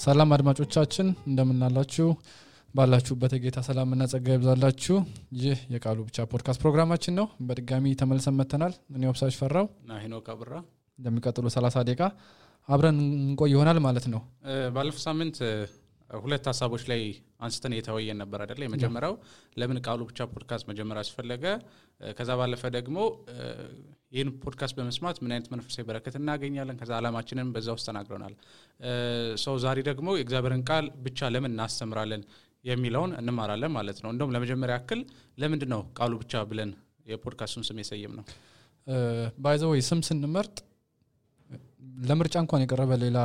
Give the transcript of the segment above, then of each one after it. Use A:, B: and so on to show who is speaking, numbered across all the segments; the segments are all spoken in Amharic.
A: ሰላም አድማጮቻችን እንደምን አላችሁ ባላችሁበት የጌታ ሰላምና ጸጋ ይብዛላችሁ ይህ የቃሉ ብቻ ፖድካስት ፕሮግራማችን ነው በድጋሚ ተመልሰን መተናል እኔ ወብሳሽ ፈራው
B: እና ሄኖክ አብራ
A: እንደሚቀጥሉ 30 ደቂቃ አብረን እንቆይ ይሆናል ማለት ነው
B: ባለፈው ሳምንት ሁለት ሐሳቦች ላይ አንስተን የተወያየን ነበር አይደል የመጀመሪያው ለምን ቃሉ ብቻ ፖድካስት መጀመር አስፈለገ ከዛ ባለፈ ደግሞ ይህን ፖድካስት በመስማት ምን አይነት መንፈሳዊ በረከት እናገኛለን ከዛ ዓላማችንን በዛው ተናግረናል ሰው ዛሬ ደግሞ የእግዚአብሔርን ቃል ብቻ ለምን እናስተምራለን የሚለውን እንማራለን ማለት ነው እንደውም ለመጀመሪያ ያክል ለምንድን ነው ቃሉ ብቻ ብለን የፖድካስቱን ስም የሰየም ነው
A: ባይ ዘ ዌይ ስም ስንመርጥ ለምርጫ እንኳን የቀረበ ሌላ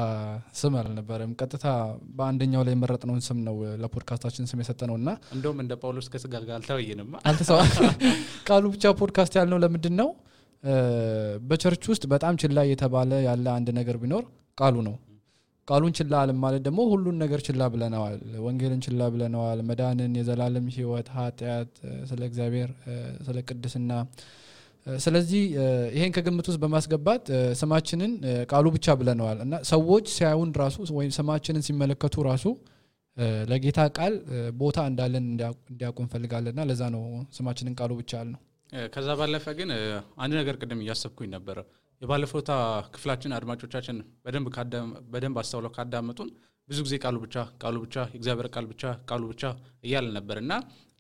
A: ስም አልነበረም ቀጥታ በአንደኛው ላይ መረጥነውን ስም ነው ለፖድካስታችን ስም የሰጠነውና
B: እንደውም እንደ ጳውሎስ ከስጋ ጋር
A: አልተሰዋ ቃሉ ብቻ ፖድካስት ያልነው ለምንድነው በቸርች ውስጥ በጣም ችላ የተባለ ያለ አንድ ነገር ቢኖር ቃሉ ነው ቃሉን ችላ አለ ማለት ደግሞ ሁሉን ነገር ችላ ብለናል ወንጌልን ችላ ብለናል መዳንን የዘላለም ሕይወት ኃጢያት ስለ እግዚአብሔር ስለ ቅድስና ስለዚህ ይሄን ከግምት ውስጥ በማስገባት ስማችንን ቃሉ ብቻ ብለናል እና ሰዎች ሲያዩን ራሱ ወይ ስማችንን ሲመለከቱ ራሱ ለጌታ ቃል ቦታ እንዳለን እንዲያውቁ እንፈልጋለንና ለዛ ነው ስማችንን ቃሉ ብቻ አልነው
B: ከዛ ባለፈ ግን አንድ ነገር ቀደም ያሰብኩኝ ነበር የባለፈውታ ክፍላችን አድማጮቻችን በደንብ አስተውለው ካዳመጡን ብዙ ጊዜ ቃሉ ብቻ እግዚአብሔር ቃሉ ብቻ እያለ ነበርና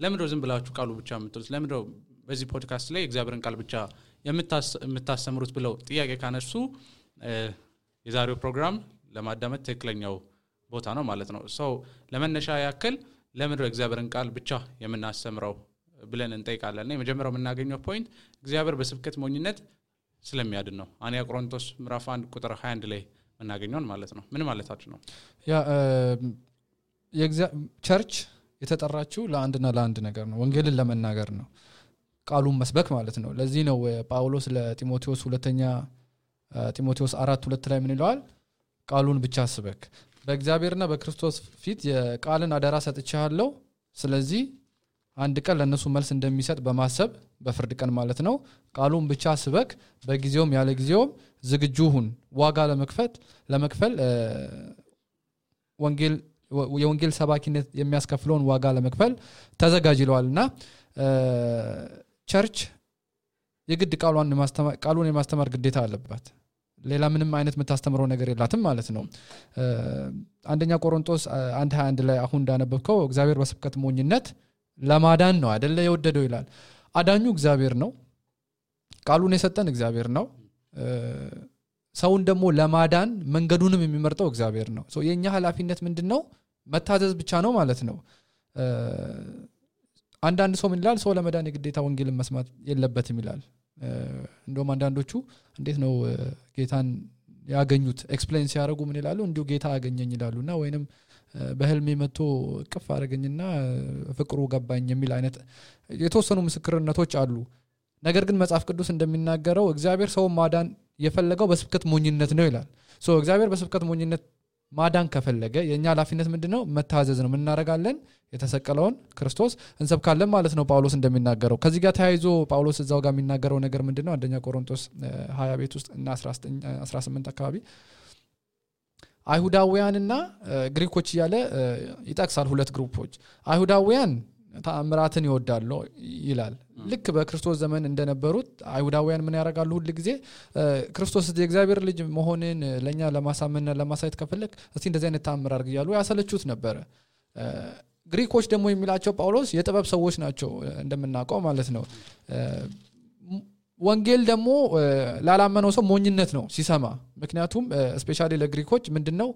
B: ለምንድነው ዝም ብላችሁ ቃሉ ብቻ የምትሉት ለምንድነው በዚህ ፖድካስት ላይ እግዚአብሔርን ቃል ብቻ የምታስተምሩት ብለው ጥያቄ ካነሱ የዛሬው ፕሮግራም ለማዳመጥ ትክክለኛው ቦታ ነው ማለት ነው ሰው ለመነሻ ያክል ለምንድነው እግዚአብሔርን ቃል ብቻ የምናስተምረው ብለን እንጠይቃለን የመጀመሪያው የምናገኘው ፖይንት እግዚአብሔር በስብከት ሞኝነት ስለሚያድን ነው አንያ ቆሮንቶስ ምዕራፍ 1 ቁጥር 21 ላይ እናገኘውን ማለት ነው ምን ማለታችሁ ነው
A: ያ ቸርች የተጠራችው ለአንድ ነገር ነው ወንጌልን ለመናገር ነው ቃሉን መስበክ ማለት ነው ለዚህ ነው ጳውሎስ ለጢሞቴዎስ ሁለተኛ ጢሞቴዎስ 4:2 ላይ ምን ይላል ቃሉን ብቻ ስበክ በእግዚአብሔርና በክርስቶስ ፊት የቃልን አደራ ሰጥቻለሁ ስለዚህ አንድ ቀን ለነሱ መልስ እንደሚሰጥ በማሰብ በፍርድ ቀን ማለት ነው ቃሉን ብቻ ስበክ በጊዜውም ያለ ጊዜውም ዝግጁ ሁን ዋጋ ለመክፈል የወንጌል ሰባኪነት የሚያስከፍለውን ዋጋ ለመክፈል ተዘጋጅ ይለዋልና ቸርች የግድ ቃሉን የማስተማር ግዴታ አለባት ሌላ ምንም አይነት የምታስተምረው ነገር የላትም ማለት ነው አንደኛ ቆሮንቶስ 1:21 ላይ አሁን እንዳነበብከው እግዚአብሔር በስብከት ሞኝነት ለማዳን ነው አይደለ የወደደው ይላል አዳኙ እግዚአብሔር ነው ቃሉን የሰጠን እግዚአብሔር ነው ሰውን ደግሞ ለማዳን መንገዱንም የሚመርጠው እግዚአብሔር ነው ሶ የኛ ኃላፊነት ምንድነው መታዘዝ ብቻ ነው ማለት ነው አንዳንድ ሰው ምን ይላል ሰው ለመዳን የግዴታ ወንጌልን መስማት የለበትም ይላል እንደውም አንዳንዶቹ እንዴት ነው ጌታን ያገኙት ኤክስፕሌን ሲያደርጉ ምን ይላሉ እንዲሁ ጌታ ያገኘኝ ይላሉና ወይንም በህልሜ መጥቶ ቅፍ አረጋኝና ፍቅሩ ገባኝ የሚል አይነት የተወሰኑ ምስክርነቶች አሉ ነገር ግን መጽሐፍ ቅዱስ እንደሚናገረው እግዚአብሔር ሰው ማዳን የፈለገው በስብከት ሞኝነት ነው ይላል ሶ እግዚአብሔር በስብከት ሞኝነት ማዳን ከፈለገ የኛ ኃላፊነት ምንድነው መታዘዝ ነው ምን እናረጋለን የተሰቀለውን ክርስቶስ እንሰብካለን ማለት ነው ጳውሎስ እንደሚናገረው ከዚህ ጋር ተያይዞ ጳውሎስ እዛው ጋር የሚናገረው ነገር ምንድነው አንደኛ ቆሮንቶስ 20 ቤት ውስጥ እና 18 አካባቢ አይሁዳውያንና ግሪኮች ያለ ይጣክሳል ሁለት ግሩፖች አይሁዳውያን ተአምራትን ይወዳሉ ይላል ልክ በክርስቶስ ዘመን እንደነበሩት አይሁዳውያን ምን ያረጋሉ ሁሉ ጊዜ ክርስቶስ የእግዚአብሔር ልጅ መሆንን ለኛ ለማሳመንና ለማሳየት ከፈለክ እስቲ እንደዚህ አይነት ተአምር አድርግ ይያሉ ያሰለቹት ነበር ግሪኮች ደግሞ የሚላቸው ጳውሎስ የጥበብ ሰዎች ናቸው እንደምናውቀው ማለት ነው ወንጌል ደግሞ ላላመነው ሰው ሞኝነት ነው ሲሰማ ምክንያቱም ስፔሻሊ ለግሪኮች ምንድነው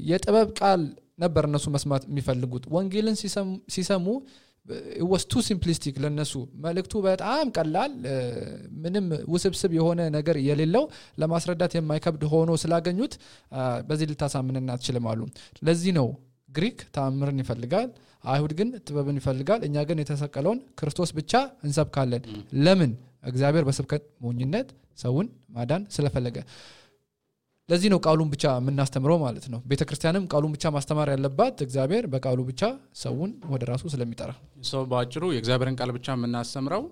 A: የጥበብ ቃል ነበር እነሱ መስማት የሚፈልጉት ወንጌልን ሲሰሙ it was too simplistic ለነሱ መልእክቱ በጣም ቀላል ምንም ውስብስብ የሆነ ነገር የሌለው ለማስረዳት የማይከብድ ሆኖ ስላገኙት በዚህ ልታሳምነና አትችልማሉ ለዚህ ነው ግሪክ ተአምርን ይፈልጋል አይሁድ ግን ጥበብን ይፈልጋል እኛ ግን የተሰቀለውን ክርስቶስ ብቻ እንሰብካለን ለምን እግዚአብሔር በስብከት ሞኝነት ሰውን ማዳን ስለፈለገ ለዚህ ነው ቃሉን ብቻ የምናስተምረው ማለት ነው ቤተክርስቲያንም ቃሉን ብቻ ማስተማር ያለባት እግዚአብሔር በቃሉ ብቻ ሰውን ወደ ራሱ ስለሚጠራ
B: ሰው ባጭሩ የእግዚአብሔርን ቃል ብቻ የምናስተምረው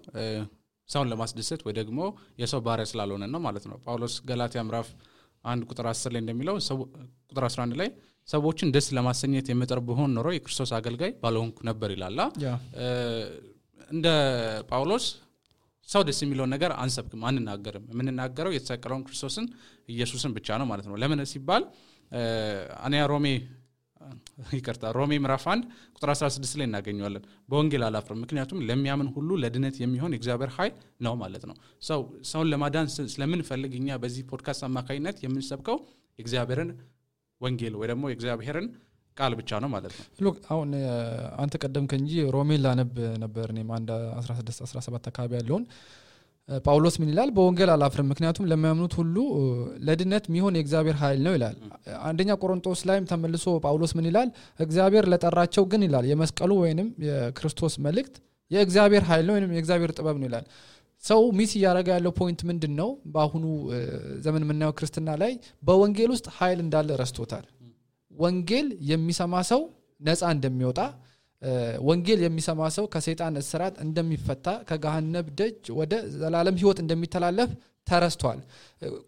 B: ሰውን ለማስደሰት ወይ ደግሞ የሰው ባሪያ ስላልሆነ ነው ማለት ነው ጳውሎስ ገላትያ ምዕራፍ 1 ቁጥር 10 ላይ እንደሚለው ቁጥር 11 ላይ ሰዎችን ደስ ለማሰኘት የምጥር ብሆን ኖሮ የክርስቶስ አገልጋይ ባልሆንኩ ነበር ይላል። እንደ ጳውሎስ ሰው ደስ የሚለው ነገር አንሰብክም አንናገርም የምንናገረው የተሰቀለውን ክርስቶስን ኢየሱስን ብቻ ነው ማለት ነው። ለምን ሲባል ሮሜ ምዕራፍ 1 ቁጥር 16 ላይ እናገኘዋለን። በወንጌል አላፍርም ምክንያቱም ለሚያምን ሁሉ ለድነት የሚሆን የእግዚአብሔር ኃይል ነው ማለት ነው። ሰውን ለማዳን ስለምንፈልግኛ በዚህ ፖድካስት አማካኝነት የምንሰብከው የእግዚአብሔርን ወንጌል ወይ ደግሞ የእግዚአብሔርን ቃል ብቻ ነው ማለት ነው።
A: ሎክ አሁን አንተ ቀደምከ እንጂ ሮሜን ላነብ ነበር እኔም 16 17 አካባቢ ያለውን ጳውሎስ ምን ይላል? በወንጌል አላፍርም ምክንያቱም ለሚያምኑት ሁሉ ለድነት የሚሆን የእግዚአብሔር ኃይል ነው ይላል። አንደኛ ቆሮንቶስ ላይም ተመልሶ ጳውሎስ ምን ይላል? እግዚአብሔር ለጠራቸው ግን ይላል የመስቀሉ ወይንም የክርስቶስ መልእክት የእግዚአብሔር ኃይል ነው ወይንም የእግዚአብሔር ጥበብ ነው ይላል። ሰው ሚስ ያረጋ ያለው ፖይንት ምንድነው? በአሁኑ ዘመን የምናየው ክርስትና ላይ በወንጌል ውስጥ ኃይል እንዳለ ረስቶታል። ወንጌል የሚሰማ ሰው ነፃ እንደሚወጣ ወንጌል የሚሰማ ሰው ከሰይጣን እስራት እንደሚፈታ ከገሃነም ደጅ ወደ ዘላለም ህይወት እንደሚተላለፍ ተረስቷል።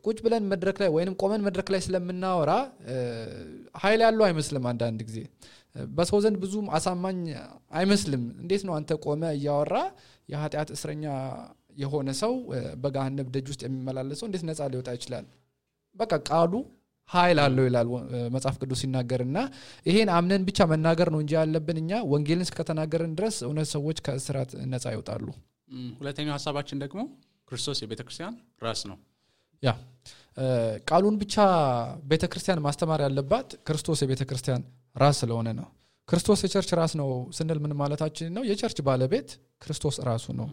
A: ቁጭ ብለን መድረክ ላይ ወይንም ቆመን መድረክ ላይ ስለምናወራ ኃይል ያለው አይመስልም። አንዳንድ ጊዜ በሰው ዘንድ ብዙም አሳማኝ አይመስልም። እንዴት ነው አንተ ቆመ እያወራ የኃጢአት እስረኛ የሆነ ሰው በገሃነም ደጅ ውስጥ የሚመላለሰው እንዴት ነፃ ሊወጣ ይችላል? በቃ ቃሉ ኃይል አለው ይላል መጽሐፍ ቅዱስ ሲናገርና ይሄን አምነን ብቻ መናገር ነው እንጂ ያለብን እኛ ወንጌልን እስከተናገርን ድረስ እውነት ሰዎች ከእስራት ነፃ ይወጣሉ።
B: ሁለተኛው ሐሳባችን ደግሞ ክርስቶስ የቤተክርስቲያን ራስ ነው።
A: ቃሉን ብቻ ቤተክርስቲያን ማስተማር ያለባት ክርስቶስ የቤተክርስቲያን ራስ ስለሆነ ነው። ክርስቶስ የቸርች ራስ ነው ስንል ምን ማለታችን ነው? የቸርች ባለቤት ክርስቶስ ራሱ ነው።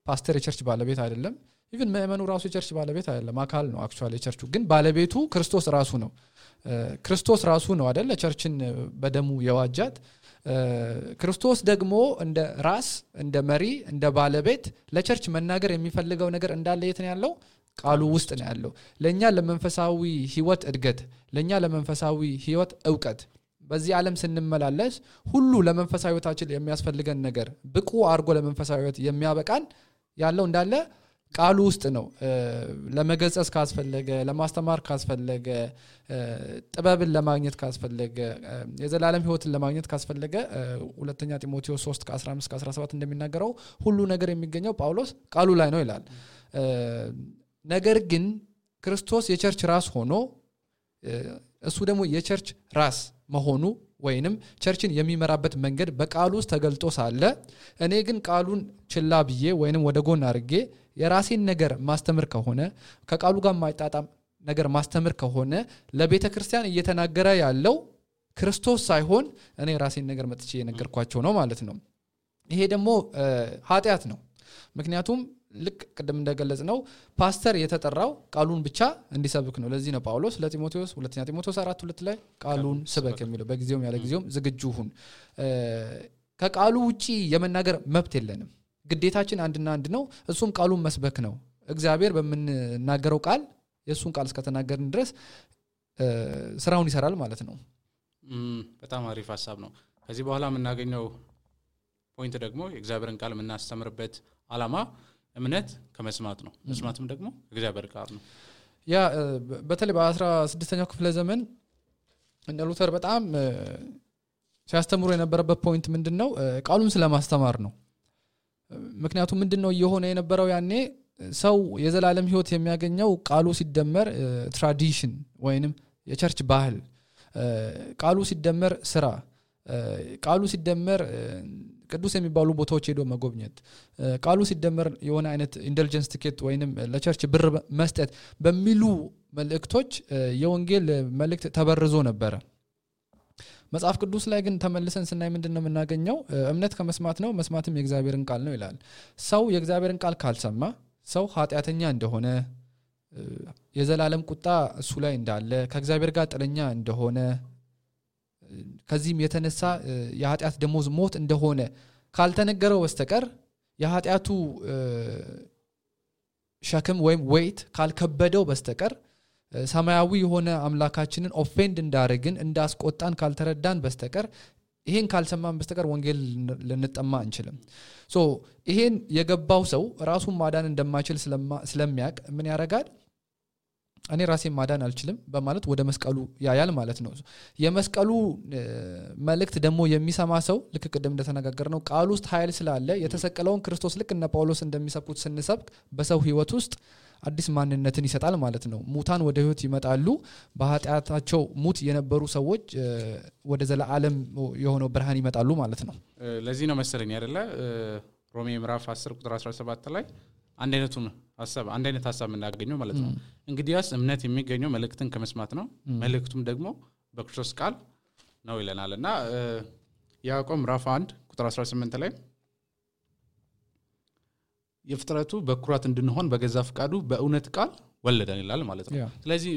A: ፓስተር የቸርች ባለቤት አይደለም። ኢቭን ምእመኑ ራሱ የቸርች ባለቤት አይደለም፣ አካል ነው። አክቹአሊ የቸርቹ ግን ባለቤቱ ክርስቶስ ራሱ ነው። ክርስቶስ ራሱ ነው አይደል ቸርችን በደሙ የዋጃት። ክርስቶስ ደግሞ እንደ ራስ እንደ መሪ እንደ ባለቤት ለቸርች መናገር የሚፈልገው ነገር እንዳለ የት ነው ያለው? ቃሉ ውስጥ ነው ያለው። ለኛ ለመንፈሳዊ ህይወት እድገት፣ ለኛ ለመንፈሳዊ ህይወት ዕውቀት በዚህ ዓለም ስንመላለስ ሁሉ ለመንፈሳዊ ህይወታችን የሚያስፈልገን ነገር ብቁ አርጎ ለመንፈሳዊ ህይወት የሚያበቃን ያለው እንዳለ ቃሉ ውስጥ ነው። ለመገሰጽ ካስፈለገ ለማስተማር ካስፈለገ ጥበብን ለማግኘት ካስፈለገ የዘላለም ህይወትን ለማግኘት ካስፈለገ ሁለተኛ ጢሞቴዎስ 3:15-17 እንደሚናገረው ሁሉ ነገር የሚገኘው ጳውሎስ ቃሉ ላይ ነው ይላል። ነገር ግን ክርስቶስ የቸርች ራስ ሆኖ እሱ ደግሞ የቸርች ራስ መሆኑ ወይንም ቸርችን የሚመራበት መንገድ በቃሉ ውስጥ ተገልጦ ሳለ እኔ ግን ቃሉን ችላ ብዬ ወይንም ወደ ጎን አድርጌ የራሴን ነገር ማስተምር ከሆነ ከቃሉ ጋር ማይጣጣም ነገር ማስተምር ከሆነ ለቤተክርስቲያን እየተናገረ ያለው ክርስቶስ ሳይሆን እኔ ራሴን ነገር መጥቼ የነገርኳቸው ነው ማለት ነው። ይሄ ደግሞ ኃጢአት ነው። ምክንያቱም ልክ ቀደም እንደገለጽ ነው ፓስተር የተጠራው ቃሉን ብቻ እንዲሰብክ ነው። ለዚህ ነው ጳውሎስ ለጢሞቴዎስ ሁለተኛ ጢሞቴዎስ 4:2 ላይ ቃሉን ስበክ የሚለው በጊዜውም ያለ ጊዜውም ዝግጁ ሁን። ከቃሉ ውጪ የመናገር መብት የለንም። ግዴታችን አንድና አንድ ነው፣ እሱም ቃሉን መስበክ ነው። እግዚአብሔር በመናገረው ቃል የሱን ቃል እስከተናገርን ድረስ ስራውን ይሰራል ማለት ነው።
B: በጣም አሪፍ ሐሳብ ነው። ከዚህ በኋላ የምናገኘው ፖይንት ደግሞ የእግዚአብሔርን ቃል የምናስተምርበት ዓላማ እምነት ከመስማት ነው። መስማትም ደግሞ እግዚአብሔር ቃል ነው።
A: ያ በተለይ በ16ኛው ክፍለ ዘመን እነ ሉተር በጣም ሲያስተምሩ የነበረበት ፖይንት ምንድነው? ቃሉን ስለማስተማር ነው። ምክንያቱም ምንድነው እየሆነ የነበረው ያኔ ሰው የዘላለም ህይወት የሚያገኘው ቃሉ ሲደመር ትራዲሽን ወይንም የቸርች ባህል፣ ቃሉ ሲደመር ስራ፣ ቃሉ ሲደመር ቅዱስ የሚባሉ ቦታዎች ሄዶ መጎብኘት፣ ቃሉ ሲደመር የሆነ አይነት ኢንደልጀንስ ቲኬት ወይንም ለቸርች ብር መስጠት በሚሉ መልእክቶች የወንጌል መልእክት ተበርዞ ነበር። መጽሐፍ ቅዱስ ላይ ግን ተመልሰን ስናይ ምንድነው የምናገኘው? እምነት ከመስማት ነው፣ መስማትም የእግዚአብሔርን ቃል ነው ይላል። ሰው የእግዚአብሔርን ቃል ካልሰማ ሰው ኃጢአተኛ እንደሆነ፣ የዘላለም ቁጣ እሱ ላይ እንዳለ፣ ከእግዚአብሔር ጋር ጥለኛ እንደሆነ፣ ከዚህም የተነሳ የኃጢአት ደሞዝ ሞት እንደሆነ ካልተነገረው በስተቀር የኃጢአቱ ሸክም ወይም ዌይት ካልከበደው በስተቀር ሰማያዊ የሆነ አምላካችንን ኦፌንድ እንዳረግን እንዳስቆጣን ካልተረዳን በስተቀር ይሄን ካልሰማን በስተቀር ወንጌል ልንጠማ አንችልም። ይሄን የገባው ሰው ራሱን ማዳን እንደማይችል ስለሚያቅ ምን ያረጋል? እኔ ራሴን ማዳን አልችልም በማለት ወደ መስቀሉ ያያል ማለት ነው። የመስቀሉ መልእክት ደግሞ የሚሰማ ሰው ልክ ቅድም እንደተነጋገርነው ቃል ውስጥ ኃይል ስላለ የተሰቀለውን ክርስቶስ ልክ እነ ጳውሎስ እንደሚሰብኩት ስንሰብክ በሰው ህይወት ውስጥ አዲስ ማንነትን ይሰጣል ማለት ነው። ሙታን ወደ ህይወት ይመጣሉ። በኃጢአታቸው ሙት የነበሩ ሰዎች ወደ ዘላለም የሆነው ብርሃን ይመጣሉ ማለት ነው።
B: ለዚህ ነው መሰለኝ አይደለ ሮሜ ምዕራፍ 10 ቁጥር 17 ላይ አንድ አይነት ሐሳብ እናገኘው ማለት ነው። እንግዲያስ እምነት የሚገኘው መልእክትን ከመስማት ነው፣ መልእክቱም ደግሞ በክርስቶስ ቃል ነው ይለናልና ያዕቆብ ምዕራፍ 1 ቁጥር 18 ላይ የፍጥረቱ በኩራት እንድንሆን በገዛ ፍቃዱ በእውነት ቃል ወለደን ይላል ማለት ነው። ስለዚህ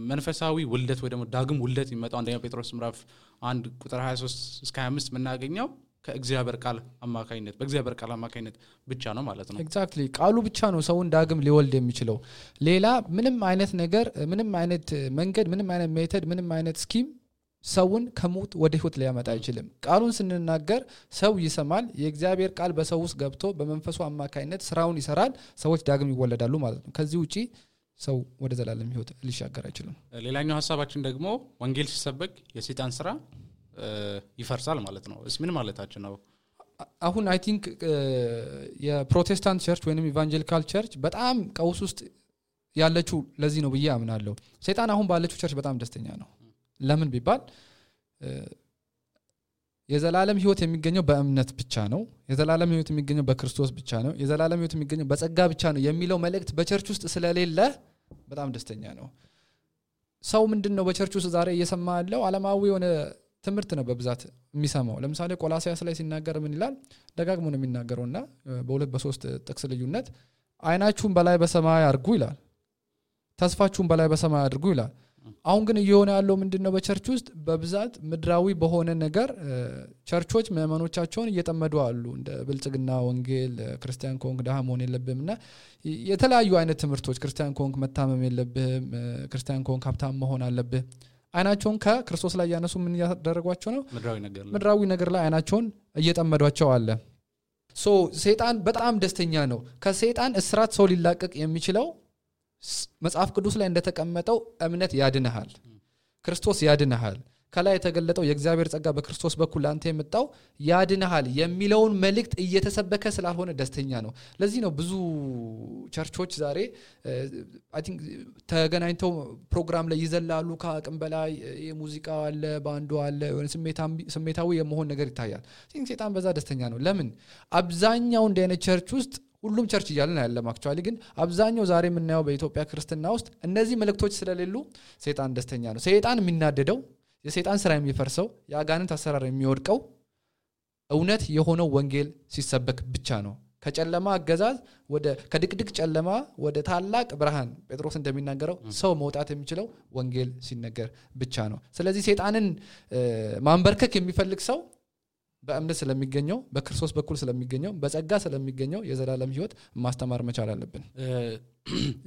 B: መንፈሳዊ ውልደት ወይ ደግሞ ዳግም ውልደት የሚመጣው አንደኛ ጴጥሮስ ምዕራፍ 1 ቁጥር 23 እስከ 25 የምናገኘው ከእግዚአብሔር ቃል አማካኝነት በእግዚአብሔር ቃል አማካኝነት ብቻ ነው ማለት ነው።
A: ኤግዛክትሊ ቃሉ ብቻ ነው ሰውን ዳግም ሊወልድ የሚችለው። ሌላ ምንም አይነት ነገር ምንም አይነት መንገድ ምንም አይነት ሜተድ ምንም አይነት ስኪም ሰውን ከሞት ወደ ህይወት ሊያመጣ አይችልም። ቃሉን ስንናገር ሰው ይሰማል። የእግዚአብሔር ቃል በሰው ውስጥ ገብቶ በመንፈሱ አማካኝነት ስራውን ይሰራል። ሰዎች ዳግም ይወለዳሉ ማለት ነው። ከዚህ ውጪ ሰው ወደ ዘላለም ህይወት ሊሻገር አይችልም።
B: ሌላኛው ሐሳባችን ደግሞ ወንጌል ሲሰበክ የሰይጣን ስራ ይፈርሳል ማለት ነው። እስ ምን ማለታችን ነው?
A: አሁን አይ ቲንክ የፕሮቴስታንት ቸርች ወይንም ኢቫንጀሊካል ቸርች በጣም ቀውስ ውስጥ ያለችው ለዚህ ነው ብዬ አምናለሁ። ሰይጣን አሁን ባለችው ቸርች በጣም ደስተኛ ነው። ለምን ቢባል የዘላለም ህይወት የሚገኘው በእምነት ብቻ ነው። የዘላለም ህይወት የሚገኘው በክርስቶስ ብቻ ነው። የዘላለም ህይወት የሚገኘው በጸጋ ብቻ ነው የሚለው መልእክት በቸርች ውስጥ ስለሌለ በጣም ደስተኛ ነው። ሰው ምንድነው በቸርች ውስጥ ዛሬ እየሰማ ያለው ዓለማዊ የሆነ ትምህርት ነው በብዛት የሚሰማው። ለምሳሌ ቆላስይስ ላይ ሲናገር ምን ይላል? ደጋግሞ ነው የሚናገረውና በሁለት በሶስት ጥቅስ ልዩነት አይናችሁን በላይ በሰማይ አድርጉ ይላል፣ ተስፋችሁን በላይ በሰማይ አድርጉ ይላል። አሁን ግን እየሆነ ያለው ምንድነው? በቸርች ውስጥ በብዛት ምድራዊ በሆነ ነገር ቸርቾች ምእመኖቻቸውን እየጠመዱ አሉ። እንደ ብልጽግና ወንጌል ክርስቲያን ኮንክ ደሃ መሆን የለብህምና የተለያዩ አይነት ትምህርቶች ክርስቲያን ኮንክ መታመም የለብህም፣ ክርስቲያን ኮንክ ሀብታም መሆን አለብህ። አይናቸውን ከክርስቶስ ላይ ያነሱ ምን ያደረጓቸው ነው? ምድራዊ ነገር ላይ አይናቸውን እየጠመዷቸው አለ። ሶ ሰይጣን በጣም ደስተኛ ነው። ከሰይጣን እስራት ሰው ሊላቀቅ የሚችለው መጽሐፍ ቅዱስ ላይ እንደተቀመጠው እምነት ያድነሃል፣ ክርስቶስ ያድነሃል፣ ከላይ የተገለጠው የእግዚአብሔር ጸጋ በክርስቶስ በኩል አንተ የመጣው ያድነሃል የሚለውን መልእክት እየተሰበከ ስላልሆነ ደስተኛ ነው። ለዚህ ነው ብዙ ቸርቾች ዛሬ አይ ቲንክ ተገናኝተው ፕሮግራም ላይ ይዘላሉ። ከአቅም በላይ የሙዚቃ አለ፣ ባንዱ አለ፣ ስሜታዊ የመሆን ነገር ይታያል። ሰይጣን በዛ ደስተኛ ነው። ለምን? አብዛኛው እንደ አይነት ቸርች ውስጥ ሁሉም ቸርች እያልን አይደለም አክቹአሊ፣ ግን አብዛኛው ዛሬ የምናየው በኢትዮጵያ ክርስትና ውስጥ እነዚህ መልእክቶች ስለሌሉ ሰይጣን ደስተኛ ነው። ሰይጣን የሚናደደው የሰይጣን ስራ የሚፈርሰው የአጋንንት አሰራር የሚወድቀው እውነት የሆነው ወንጌል ሲሰበክ ብቻ ነው። ከጨለማ አገዛዝ ከድቅድቅ ጨለማ ወደ ታላቅ ብርሃን ጴጥሮስ እንደሚናገረው ሰው መውጣት የሚችለው ወንጌል ሲነገር ብቻ ነው። ስለዚህ ሰይጣንን ማንበርከክ የሚፈልግ ሰው በእምነት ስለሚገኘው በክርስቶስ በኩል ስለሚገኘው በጸጋ ስለሚገኘው የዘላለም ህይወት ማስተማር መቻል አለብን።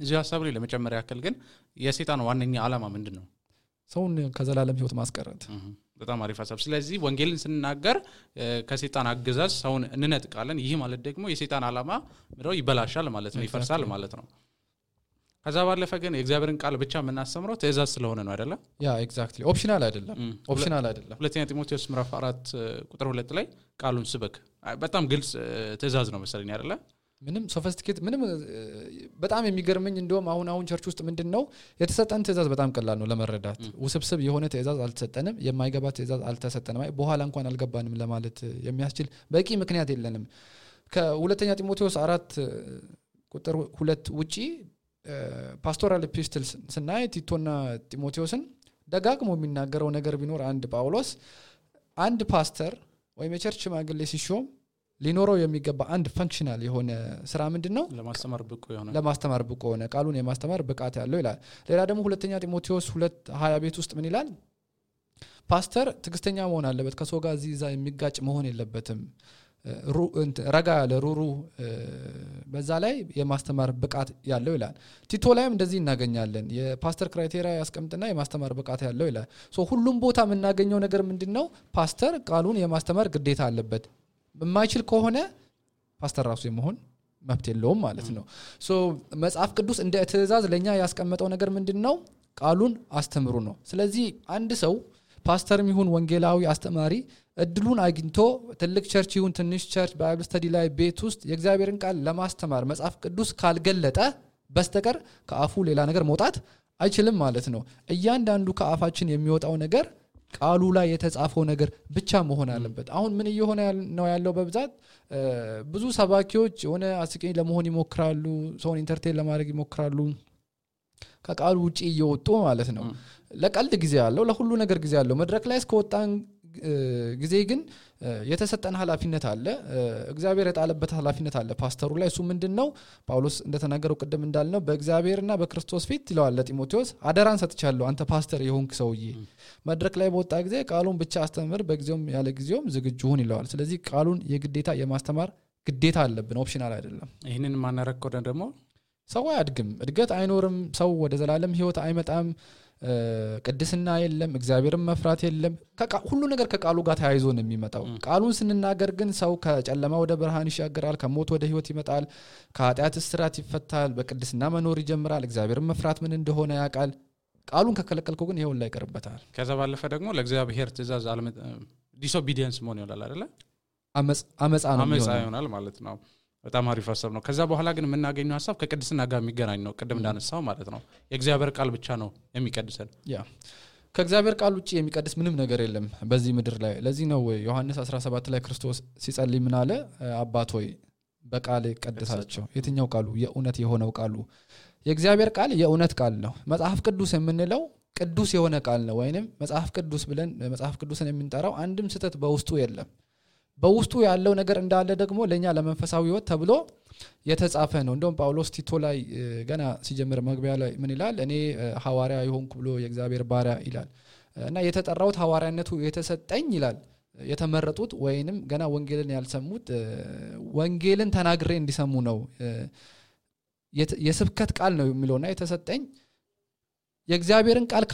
B: እዚህ ሐሳብ ላይ ለመጨመር ያክል ግን የሰይጣን ዋነኛ ዓላማ ምንድነው?
A: ሰውን ከዘላለም ህይወት ማስቀረት።
B: በጣም አሪፍ ሐሳብ። ስለዚህ ወንጌልን ስንናገር ከሰይጣን አገዛዝ ሰውን እንነጥቃለን። ይህ ማለት ደግሞ የሰይጣን ዓላማ ምንድነው? ይበላሻል ማለት ነው፣ ይፈርሳል ማለት ነው። ከዛ ባለፈ ግን የእግዚአብሔርን ቃል ብቻ የምናስተምረው ትእዛዝ ስለሆነ ነው አይደለ?
A: ያ ኤግዛክትሊ ኦፕሽናል አይደለም።
B: ሁለተኛ ጢሞቴዎስ ምዕራፍ 4 ቁጥር 2 ላይ ቃሉን ስበክ በጣም ግልጽ ትእዛዝ ነው መሰለኝ አይደለ?
A: ምንም ሶፊስቲኬት ምንም በጣም የሚገርመኝ እንደውም አሁን ቸርች ውስጥ ምንድነው የተሰጠን ትእዛዝ በጣም ቀላል ነው ለመረዳት። ውስብስብ የሆነ ትእዛዝ አልተሰጠንም፣ የማይገባ ትእዛዝ አልተሰጠንም። በኋላ እንኳን አልገባንም ለማለት የሚያስችል በቂ ምክንያት የለንም። ከሁለተኛ ጢሞቴዎስ 4 ቁጥር 2 ውጪ ፓስቶራል ኤፒስትልስ ስናይ ቲቶና ጢሞቴዎስን ደጋግሞ የሚናገረው ነገር ቢኖር አንድ ጳውሎስ አንድ ፓስተር ወይም የቸርች ሽማግሌ ሲሾም ሊኖረው የሚገባ አንድ ፈንክሽናል የሆነ ስራ ምንድነው? ለማስተማር ብቁ የሆነ ቃሉን የማስተማር ብቃት ያለው ይላል። ሌላ ደግሞ ሁለተኛ ጢሞቴዎስ 2:20 ቤት ውስጥ ምን ይላል? ፓስተር ትዕግስተኛ መሆን አለበት፣ ከሰው ጋር እዛ የሚጋጭ መሆን የለበትም፣ ረጋ ያለ ሩሩ በዛ ላይ የማስተማር ብቃት ያለው ይላል። ቲቶ ላይም እንደዚህ እናገኛለን። የፓስተር ክራይቴሪያ ያስቀምጥና የማስተማር ብቃት ያለው ይላል። ሁሉም ቦታ የምናገኘው ነገር ምንድነው? ፓስተር ቃሉን የማስተማር ግዴታ አለበት። የማይችል ከሆነ ፓስተር ራሱ የመሆን መብት የለውም ማለት ነው ሶ መጽሐፍ ቅዱስ እንደ ትእዛዝ ለኛ ያስቀመጠው ነገር ምንድነው ቃሉን አስተምሩ ነው ስለዚህ አንድ ሰው ፓስተርም ይሁን ወንጌላዊ አስተማሪ እድሉን አግኝቶ ትልቅ ቸርች ይሁን ትንሽ ቸርች ባይብል ስተዲ ላይ ቤት ውስጥ የእግዚአብሔርን ቃል ለማስተማር መጽሐፍ ቅዱስ ካልገለጠ በስተቀር ከአፉ ሌላ ነገር መውጣት አይችልም ማለት ነው እያንዳንዱ ከአፋችን የሚወጣው ነገር ቃሉ ላይ የተጻፈው ነገር ብቻ መሆን አለበት አሁን ምን እየሆነ ነው ያለው በብዛት ብዙ ሰባኪዎች ሆነ አስቂኝ ለመሆን ይሞክራሉ ሰውን ኢንተርቴን ለማድረግ ይሞክራሉ ከቃሉ ውጪ እየወጡ ማለት ነው ለቀልድ ጊዜ ያለው ለሁሉ ነገር ጊዜ ያለው መድረክ ላይ እስከወጣን ጊዜ ግን የተሰጠን ኃላፊነት አለ እግዚአብሔር የጣለበት ኃላፊነት አለ ፓስተሩ ላይ እሱ ምንድነው ጳውሎስ እንደተናገረው ቀደም እንዳልነው በእግዚአብሔርና በክርስቶስ ፊት ይለዋል ለጢሞቴዎስ አደራን ሰጥቻለሁ አንተ ፓስተር የሆንክ ሰውዬ መድረክ ላይ በወጣ ጊዜ ቃሉን ብቻ አስተምር በጊዜውም ያለ ጊዜውም ዝግጁ ሁን ይለዋል ስለዚህ ቃሉን የግዴታ የማስተማር ግዴታ አለብን ኦፕሽናል አይደለም
B: ይሄንን ማናረክ ወደ ደግሞ
A: ሰው ያድግም እድገት አይኖርም ሰው ወደ ዘላለም ህይወት አይመጣም ቅድስና የለም እግዚአብሔርን መፍራት የለም ሁሉ ነገር ከቃሉ ጋር ተያይዞ ነው የሚመጣው ቃሉን ስንናገር ግን ሰው ከጨለማ ወደ ብርሃን ይሻገራል ከሞት ወደ ህይወት ይመጣል ከኃጢአት እስራት ይፈታል በቅድስና መኖር ይጀምራል እግዚአብሔርን መፍራት ምን እንደሆነ ያውቃል ቃሉን ከከለከልከው ግን ይሄው ላይ ይቀርበታል
B: ከዛ ባለፈ ደግሞ ለእግዚአብሔር ትእዛዝ ዲስኦቢዲየንስ መሆን ይላል አይደለ አመጻ ይሆናል ማለት ነው በጣም አሪፍ ሐሳብ ነው ከዛ በኋላ ግን የምናገኘው ሐሳብ ከቅድስና ጋር የሚገናኝ ነው ቀደም እንዳነሳው ማለት ነው የእግዚአብሔር ቃል ብቻ ነው የሚቀድሰን
A: ከእግዚአብሔር ቃል ውጪ የሚቀድስ ምንም ነገር የለም በዚህ ምድር ላይ ለዚህ ነው ዮሐንስ 17 ላይ ክርስቶስ ሲጸልይ ምን አለ አባት ሆይ በቃል ቀድሳቸው የትኛው ቃሉ የእውነት የሆነው ቃሉ የእግዚአብሔር ቃል የእውነት ቃል ነው መጽሐፍ ቅዱስ የምንለው ቅዱስ የሆነ ቃል ነው ወይንም መጽሐፍ ቅዱስ ብለን መጽሐፍ ቅዱስን የምንጠራው አንድም ስተት በውስጡ የለም በውስጡ ያለው ነገር እንዳለ ደግሞ ለኛ ለመንፈሳዊ ህይወት ተብሎ የተጻፈ ነው እንደውም ጳውሎስ ቲቶ ላይ ገና ሲጀምር መግቢያ ላይ ምን ይላል እኔ ሐዋርያ ይሆንኩ ብሎ የእግዚአብሔር ባሪያ ይላል እና የተጠራውት ሐዋርያነቱ የተሰጠኝ ይላል የተመረጡት ወይንም ገና ወንጌልን ያልሰሙት ወንጌልን ተናግሬ እንዲሰሙ ነው የስብከት ቃል ነው የሚለውና የተሰጠኝ የእግዚአብሔርን ቃል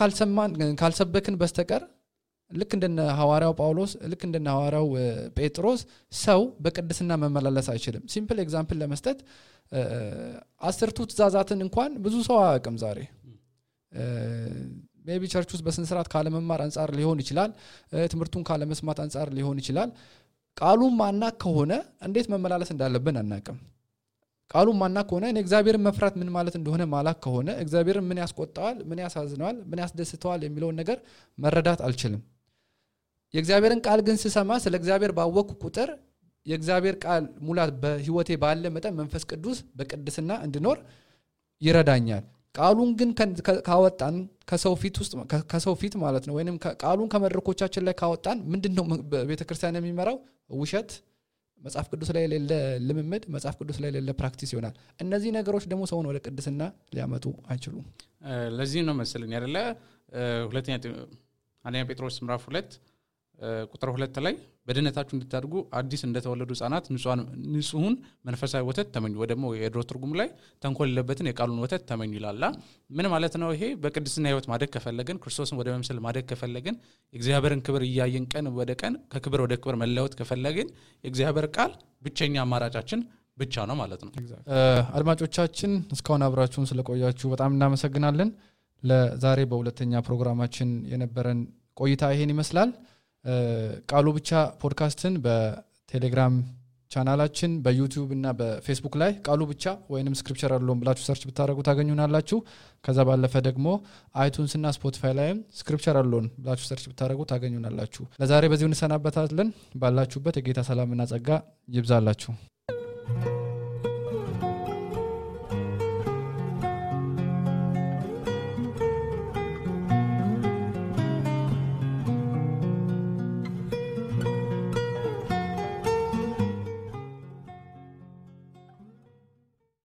A: ካልሰበክን በስተቀር ልክ እንደነ ሐዋርያው ጳውሎስ ልክ እንደነ ሐዋርያው ጴጥሮስ ሰው በቅድስና መመላለስ አይችልም ሲምፕል ኤግዛምፕል ለመስጠት 10 ትእዛዛትን እንኳን ብዙ ሰው አያውቅም ዛሬ ሜቢ ቸርች ውስጥ በስነ ስርዓት ካለ መማር አንፃር ሊሆን ይችላል ትምርቱን ካለ መስማት አንፃር ሊሆን ይችላል ቃሉን ማናቅ ከሆነ እንዴት መመላለስ እንዳለብን አናውቅም ቃሉን ማናቅ ከሆነ እኔ እግዚአብሔርን መፍራት ምን ማለት እንደሆነ ማላቅ ከሆነ እግዚአብሔርን ምን ያስቆጣዋል ምን ያሳዝነዋል ምን ያስደስተዋል የሚለው ነገር መረዳት አልችልም የእግዚአብሔርን ቃል ግን ስሰማ ስለ እግዚአብሔር ባወቅኩ ቁጥር የእግዚአብሔር ቃል ሙላት በህይወቴ ባለ መጠን መንፈስ ቅዱስ በቅድስና እንድኖር ይረዳኛል ቃሉን ግን ካወጣን ከሰው ፊት ማለት ነው ወይንም ቃሉን ከመድረኮቻችን ላይ ካወጣን ምንድነው በቤተክርስቲያን የሚመራው ውሸት መጽሐፍ ቅዱስ ላይ የሌለ ልምምድ መጽሐፍ ቅዱስ ላይ የሌለ ፕራክቲስ ይሆናል እነዚህ ነገሮች ደግሞ ሰውን ወደ ቅድስና ሊያመጡ አይችሉም
B: ለዚህ ነው መሰለኝ አይደለ አንደኛ ጴጥሮስ ምዕራፍ 2 ቁጥር 2 ላይ በድነታችሁ እንድታድጉ አዲስ እንደተወለዱ ህፃናት ንጹህን መንፈሳዊ ወተት ተመኙ ወደሞ የድሮ ትርጉም ላይ ተንኮል የለበትን የቃሉን ወተት ተመኙ ይላል ምን ማለት ነው ይሄ በቅድስና ህይወት ማደግ ከፈለግን ክርስቶስን ወደ መምሰል ማደግ ከፈለግን የእግዚአብሔርን ክብር ያያየን ቀን ወደ ቀን ከክብር ወደ ክብር መለወጥ ከፈለግን የእግዚአብሔር ቃል ብቸኛ አማራጫችን ብቻ ነው ማለት ነው
A: አድማጮቻችን እስካሁን አብራችሁን ስለቆያችሁ በጣም እናመሰግናለን ለዛሬ በሁለተኛ ፕሮግራማችን የነበረን ቆይታ ይሄን ይመስላል ቃሉ ብቻ ፖድካስትን በቴሌግራም ቻናላችን በዩቲዩብ እና በፌስቡክ ላይ ቃሉ ብቻ ወይንም ስክሪፕቸር አለውን ብላችሁ ሰርች ብታረጉ ታገኙናላችሁ ከዛ ባለፈ ደግሞ አይቱንስ እና ስፖቲፋይ ላይም ስክሪፕቸር አለውን ብላችሁ ሰርች ብታረጉ ታገኙናላችሁ ለዛሬ በዚሁ እንሰናበታለን ባላችሁበት የጌታ ሰላምና ጸጋ ይብዛላችሁ